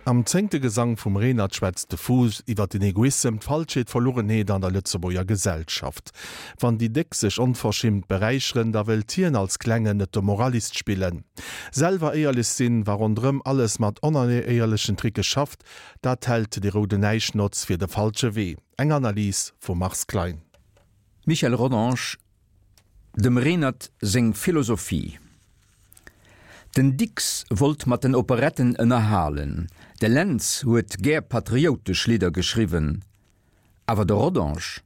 Am zéngte Gesang vum Renert schwätzt de Fuuss iwwer den Egoissem, d'Falschheet, d'Verlugenheet an der Lëtzebuerger Gesellschaft. Wann déi Déck sech onverschimmt beräicheren, da wëllt hien als Klengen net de Moralist spillen. Selwer éierlech sinn, wa ronderëm alles mat onéierlechen Tricke schafft, dat hält de rouden Näischnotz fir de falsche Wee. Eng Analys vum Mars Klein. Michel Rodange, Dem Renert seng Philosophie. Den Dicks wollt mat den Operetten ënnerhalen, de Lentz huet gär patrioutesch Lidder geschriwwen, awer de Rodange,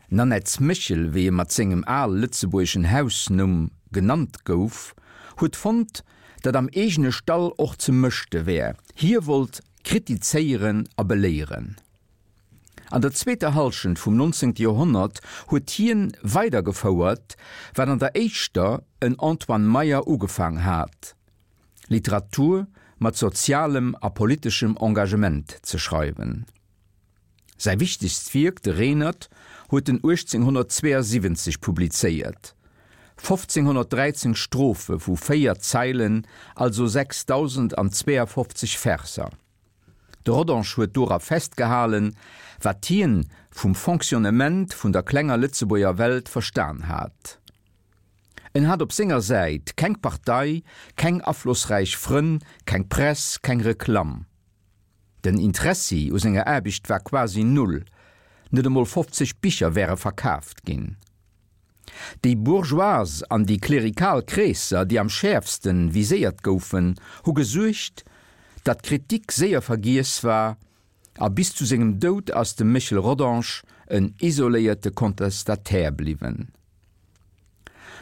Nannetts Méchel, wéi e mat sengem al-lëtzebuergeschen Hausnumm genannt gouf, huet fonnt, datt am eegene Stall och ze mëschte wär, hie wollt kritizéieren a beléieren. An der zweeter Hallschent vum 19. Joerhonnert huet hien weidergefouert, wat an der éischter en Antoine Meyer ugefaang hat, Literatur mat sozialem a politeschem Engagement ze schreiwen. Säi wichtegst Wierk, de Renert, huet en 1872 publizéiert, 1513 Strophe vu véier Zeilen, also 6052 Verser. De Rodange huet dora festgehalen, wat hien vum Fonctionnement vun der klenger Lëtzebuerger Welt verstan hat. En hat op senger Säit keng Partei, keng aflossräich Frënn, keng Press, keng Reklamm. Den Interessi u senger Aarbecht war quasi null, net emol 50 Bicher wäre verkaaft ginn. Déi bourgeoise an déi klerikal Kreesser, déi am schäerfste viséiert goufen, hu gesuergt, datt d'Kritik séier vergiess war, a bis zu sengem Doud ass de Méchel Rodange en isoléierte Contestataire bliwwen.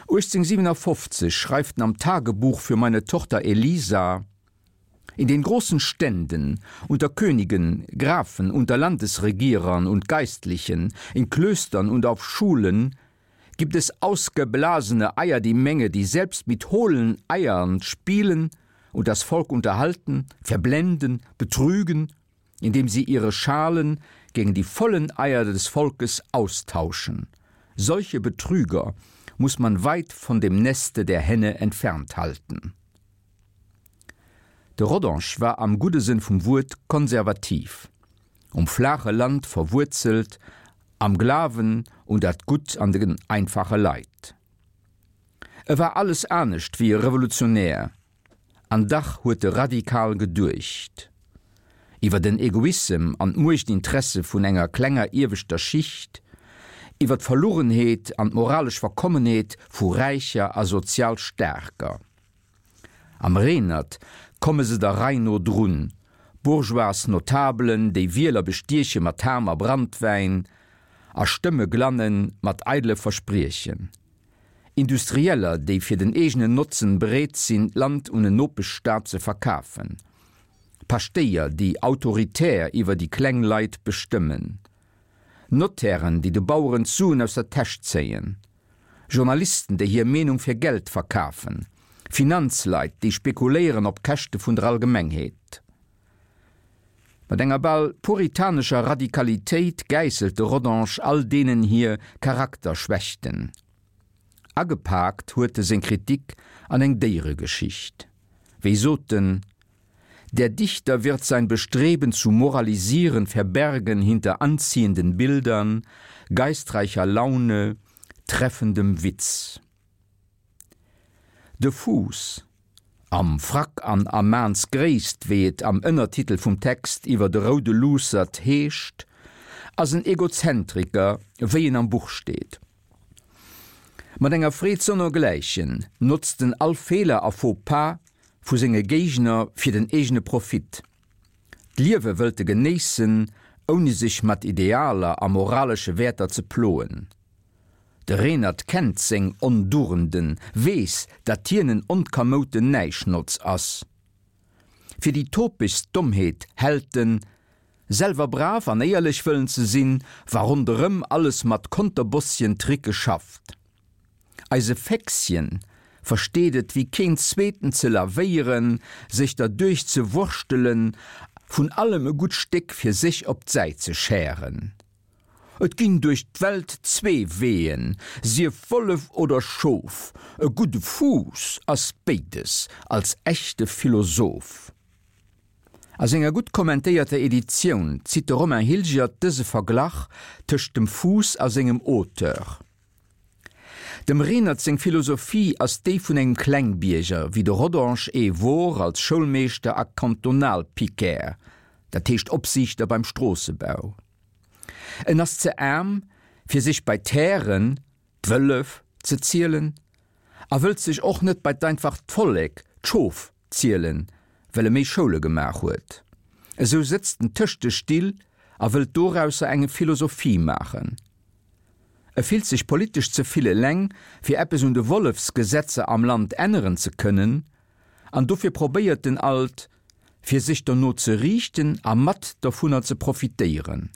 1857 schreift en am Tagebuch für meine Tochter Elisa, In den großen Ständen, unter Königen, Grafen, unter Landesregierern und Geistlichen, in Klöstern und auf Schulen gibt es ausgeblasene Eier die Menge, die selbst mit hohlen Eiern spielen und das Volk unterhalten, verblenden, betrügen, indem sie ihre Schalen gegen die vollen Eier des Volkes austauschen. Solche Betrüger muss man weit von dem Neste der Henne entfernt halten. De Rodange war am gudde Sënn vum Wuert konservativ, um flaache Land verwuerzelt, am Glawen un dat Gutt an den einfache Leit. E war alles anescht wéi e Revolutionär, an dach huet e radikal geduecht. Iwwer den Egoissem an d'Muechtinteresse vun enger klenger ieweschter Schicht, iwwer d'Verlugenheet an d'moralesch Verkommenheet vu Räicher a sozial Staarker. Am Renert komme se der Rei no drun, bourgeois Notabelen, déi Wieler bestieche mat Ham a Brandwäin a Stëmme glanne mat eidele Verspriechen, Industrieller, déi fir den eegenen Notzen bereet sinn, d'Land un en Nopeschstaat ze verkafen, Paschtéier, déi autoritär iwwer déi kleng Leit bestëmmen, Notairen, déi de Baueren d'Suen aus der Täsch zéien. Journalisten, déi hir Meenung fir Geld verkafen, Finanzleit, déi spekuléieren op Käschte vun der Allgemengheet. Mat enger bal puritanescher Radikalitéit gäisselt de Rodange all deenen hir Charakterschwächten. Agepaakt huet e seng Kritik an eng Déieregeschicht. Wéi sot en, Der Dichter wird sein Bestreben zu moralisieren verbergen hinter anziehenden Bildern, geistreicher Laune, treffendem Witz. De Fuuss, am Frack an a Maansgréisst, wéi et am Ënnertitel vum Text iwwer de roude Luussert heescht, ass en Egozentriker, wéi en am Buch steet. Mat enger Freed sonnergläichen notzt en all Feeler a Faux-pas vu senge Géigner fir den eegene Profit. D'Liewe wëllt e genéissen, ouni sech mat Idealer a moralesche Wäerter ze ploen. De Renert kennt seng Ondugenden, weess, datt hien en onkamouten Näischnotz ass. Fir déi topegst Dommheet hält en, selwer brav an éierlech wëllen ze sinn, wa ronderëm alles mat Konterbossien-Tricke schafft. Eise Féchschen versteet et wéi keen zweeten ze lavéieren, sech derduerch ze wurschtelen, vun allem e gutt Stéck fir sech op d'Säit ze schären. Et ginn duerch d'Welt zwee Weeën, sief Wollef oder Schof, e gudde Fuuss ass béides als echte Philosoph. A senger gutt kommentéierter Editioun zitt de Romain Hilgert dëse Verglach tëscht dem Fuuss a sengem Auteur. Dem Renert seng Philosophie ass déi vun engem Klengbierger, wéi de Rodange ee wor als Schoulmeeschter a Kantonalpiquaire, dat heescht Opsiichter beim Stroossebau. En ass ze aarm, fir sech bei d'Hären, d'Wëllef, ze zielen a wëllt sech och net bei d'einfacht Vollek, d'Schof, zielen, well e méi Schoule gemaach huet. Esou sëtzt en tëscht de Still a wëllt dorausser enge Philosophie maachen. E fillt sech politesch ze vill eleng, fir eppes un de Wollefsgesetzer am Land änneren ze kënnen, an dofir probéiert en alt, fir sech derno ze riichten a mat dervunner ze profitéieren.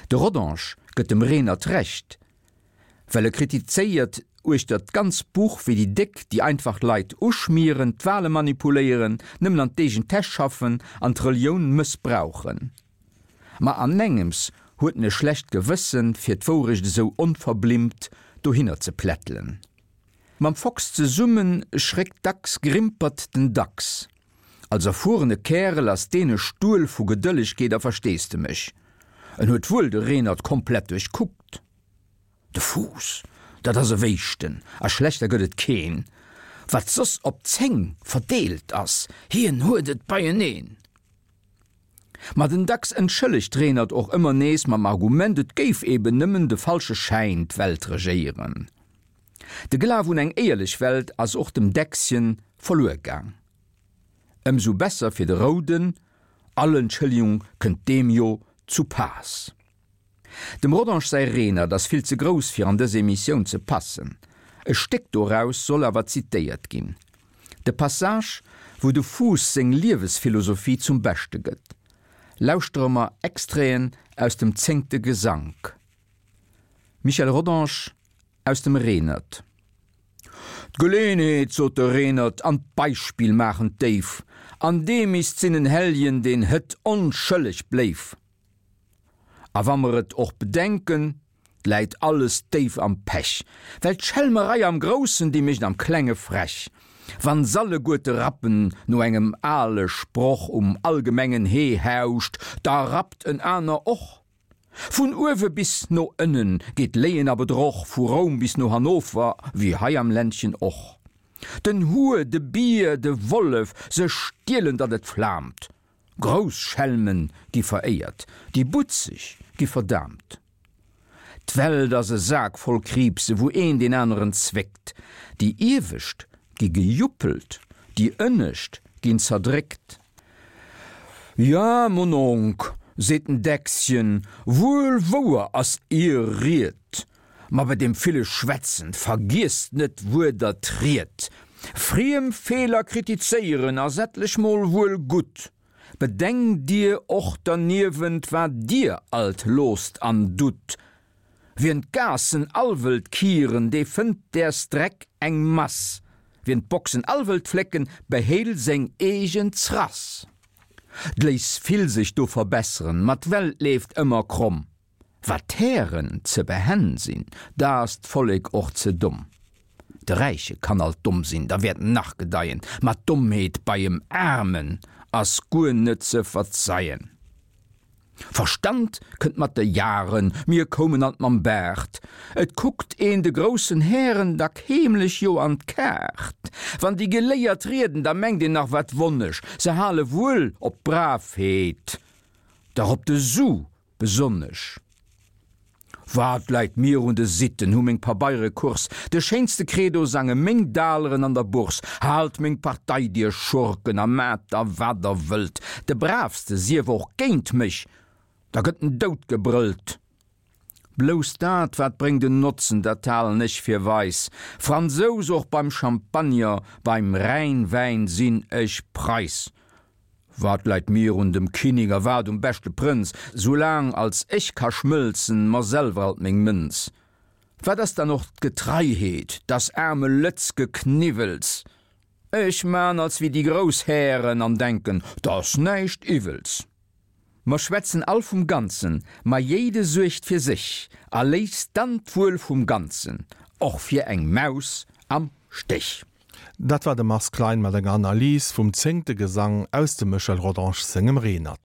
De Rodange gëtt dem Renert Recht, well e kritizéiert uechter d'ganz Buch, wéi déi Déck déi einfach Leit uschmieren, d'Wale manipuléieren, nëmmen an d'eegen Täsch schaffen an d'Relioun mëssbrauchen. Ma anengems huet en e schlecht Gewëssen, fir d'Wourecht esou onverblimmt dohinner ze plättelen. Mam Fox zesumme schréckt dacks grimpert den Dachs. Als erfuerene Kärel ass deen e Stuel vu Gedëllegkeet a Versteesdemech. En huet wuel de Renert komplett duerchkuckt. De Fuuss, dat ass e Wéischten, a schlechter gëtt et keen. Wat soss op 10 verdeelt ass, hien huet et beieneen. Ma den Dachs entschëllegt Renert och ëmmer nees mam Argument, et géif eben nëmmen de falsche Schäin d'Welt regéieren. De Glaf un eng éierlech Welt ass och dem Däckschen verluer gaang. Ëmsou besser fir de Rouden, all Entschëllegung kënnt deem jo zu Paass. Dem Rodange säi Renert ass vill ze grouss fir an dës Emissioun ze passen. E Stéck doraus soll awer zitéiert ginn. De Passage, wou de Fuuss seng Liewesphilosophie zum Beschte gëtt. Lauschtere mer Extraiten aus dem zéngte Gesank. Michel Rodange aus dem Renert. D'Geleenheet, sot de Renert, an d'Beispill maachen d'Déif, an dee misst sinn en Helljen, deen hët onschëlleg bléif. A wa mer et och bedenken, 't läit alles déif am Pech, well d'Schelmerei am Groussen, déi mécht am Klenge frech. Wann s'alleguerte rappen no engem ale Sproch um allgemengen Hee hauscht, da rappt en aner och. Vun uewe bis no ënnen geet Léien a Bedroch, vu Roum bis no Hannover, wéi hei am Ländchen och. Den Huer, de Bier, de Wollef, se stielen, datt et flaamt. Grouss Schelme gi veréiert, déi Butzeg gi verdaamt. D'Welt ass e Sak voll Kriibse, wou een deen aneren zwéckt. Déi Iewescht gi gejuppelt, déi Ënnescht ginn zerdréckt. Ja, Mononk, seet den Däckschen, wuel wouer ass Ier Ried, ma bei deem ville Schwätzen vergiesst net wuer Der triet. Friem Feeler kritizéieren ass etlech mol wuel gutt, bedenkt Dir och derniewent, wat Dir alt loosst an dutt. Wien d'Gaassen all wëllt kieren, dee fënnt däers Dreck eng Mass. Wien d'Boxen all wëllt flécken, behéil seng eegen Zrass. 't léisst vill sech do verbesseren, ma d'Welt leeft ëmmer kromm. Wat d'Hären ze behenn sinn, da ass d'Vollek och ze domm. De Räiche kann alt domm sinn, da wäert en nach gedeien, ma d'Dommheet bei em Aarmen ass guer net ze verzeien. Verstand kënnt mat de Jaren, mir koumen alt mam Baart. Et kuckt een de groussen Hären dack heemlech jo an d'Kaart. Wann déi Geléiert rieden, da mengt een nach wat wonnesch, se hale wuel op d'Bravheet, dach op de Su Besonnesch Wat läit mir un de Sitten, hu meng Pabeiere Course, de schéinste Credo sange meng Daleren an der Bourse, haalt meng Partei, dir Schurken, a maat der wat der wëllt, de Braavste sief och géint mech, da gëtt en dout gebrëllt. Blouss dat, wat bréngt en Notzen, dat halen ech fir weis, Fransous och beim Champagner, beim Rhäinwäin sinn ech Preiss. Wat läit mir un dem Kinning a wat um beschte Prënz, soulaang als ech ka schmëlzen mer selwer alt meng Mënz? Wat ass dann och d'Getreiheet, t'ass aarme Lëtz Gekniwwels. Ech man als wéi déi grouss Hären an denken, t'ass näischt Iwwels. Mer schwätzen all vum Ganzen, ma jéide suergt fir sech a léisst dann d'Wuel vum Ganzen och fir eng Maus am Stech. Dat war de Mars Klein mat enger Analys vum zéngte Gesang aus dem Michel Rodange sengem Renert.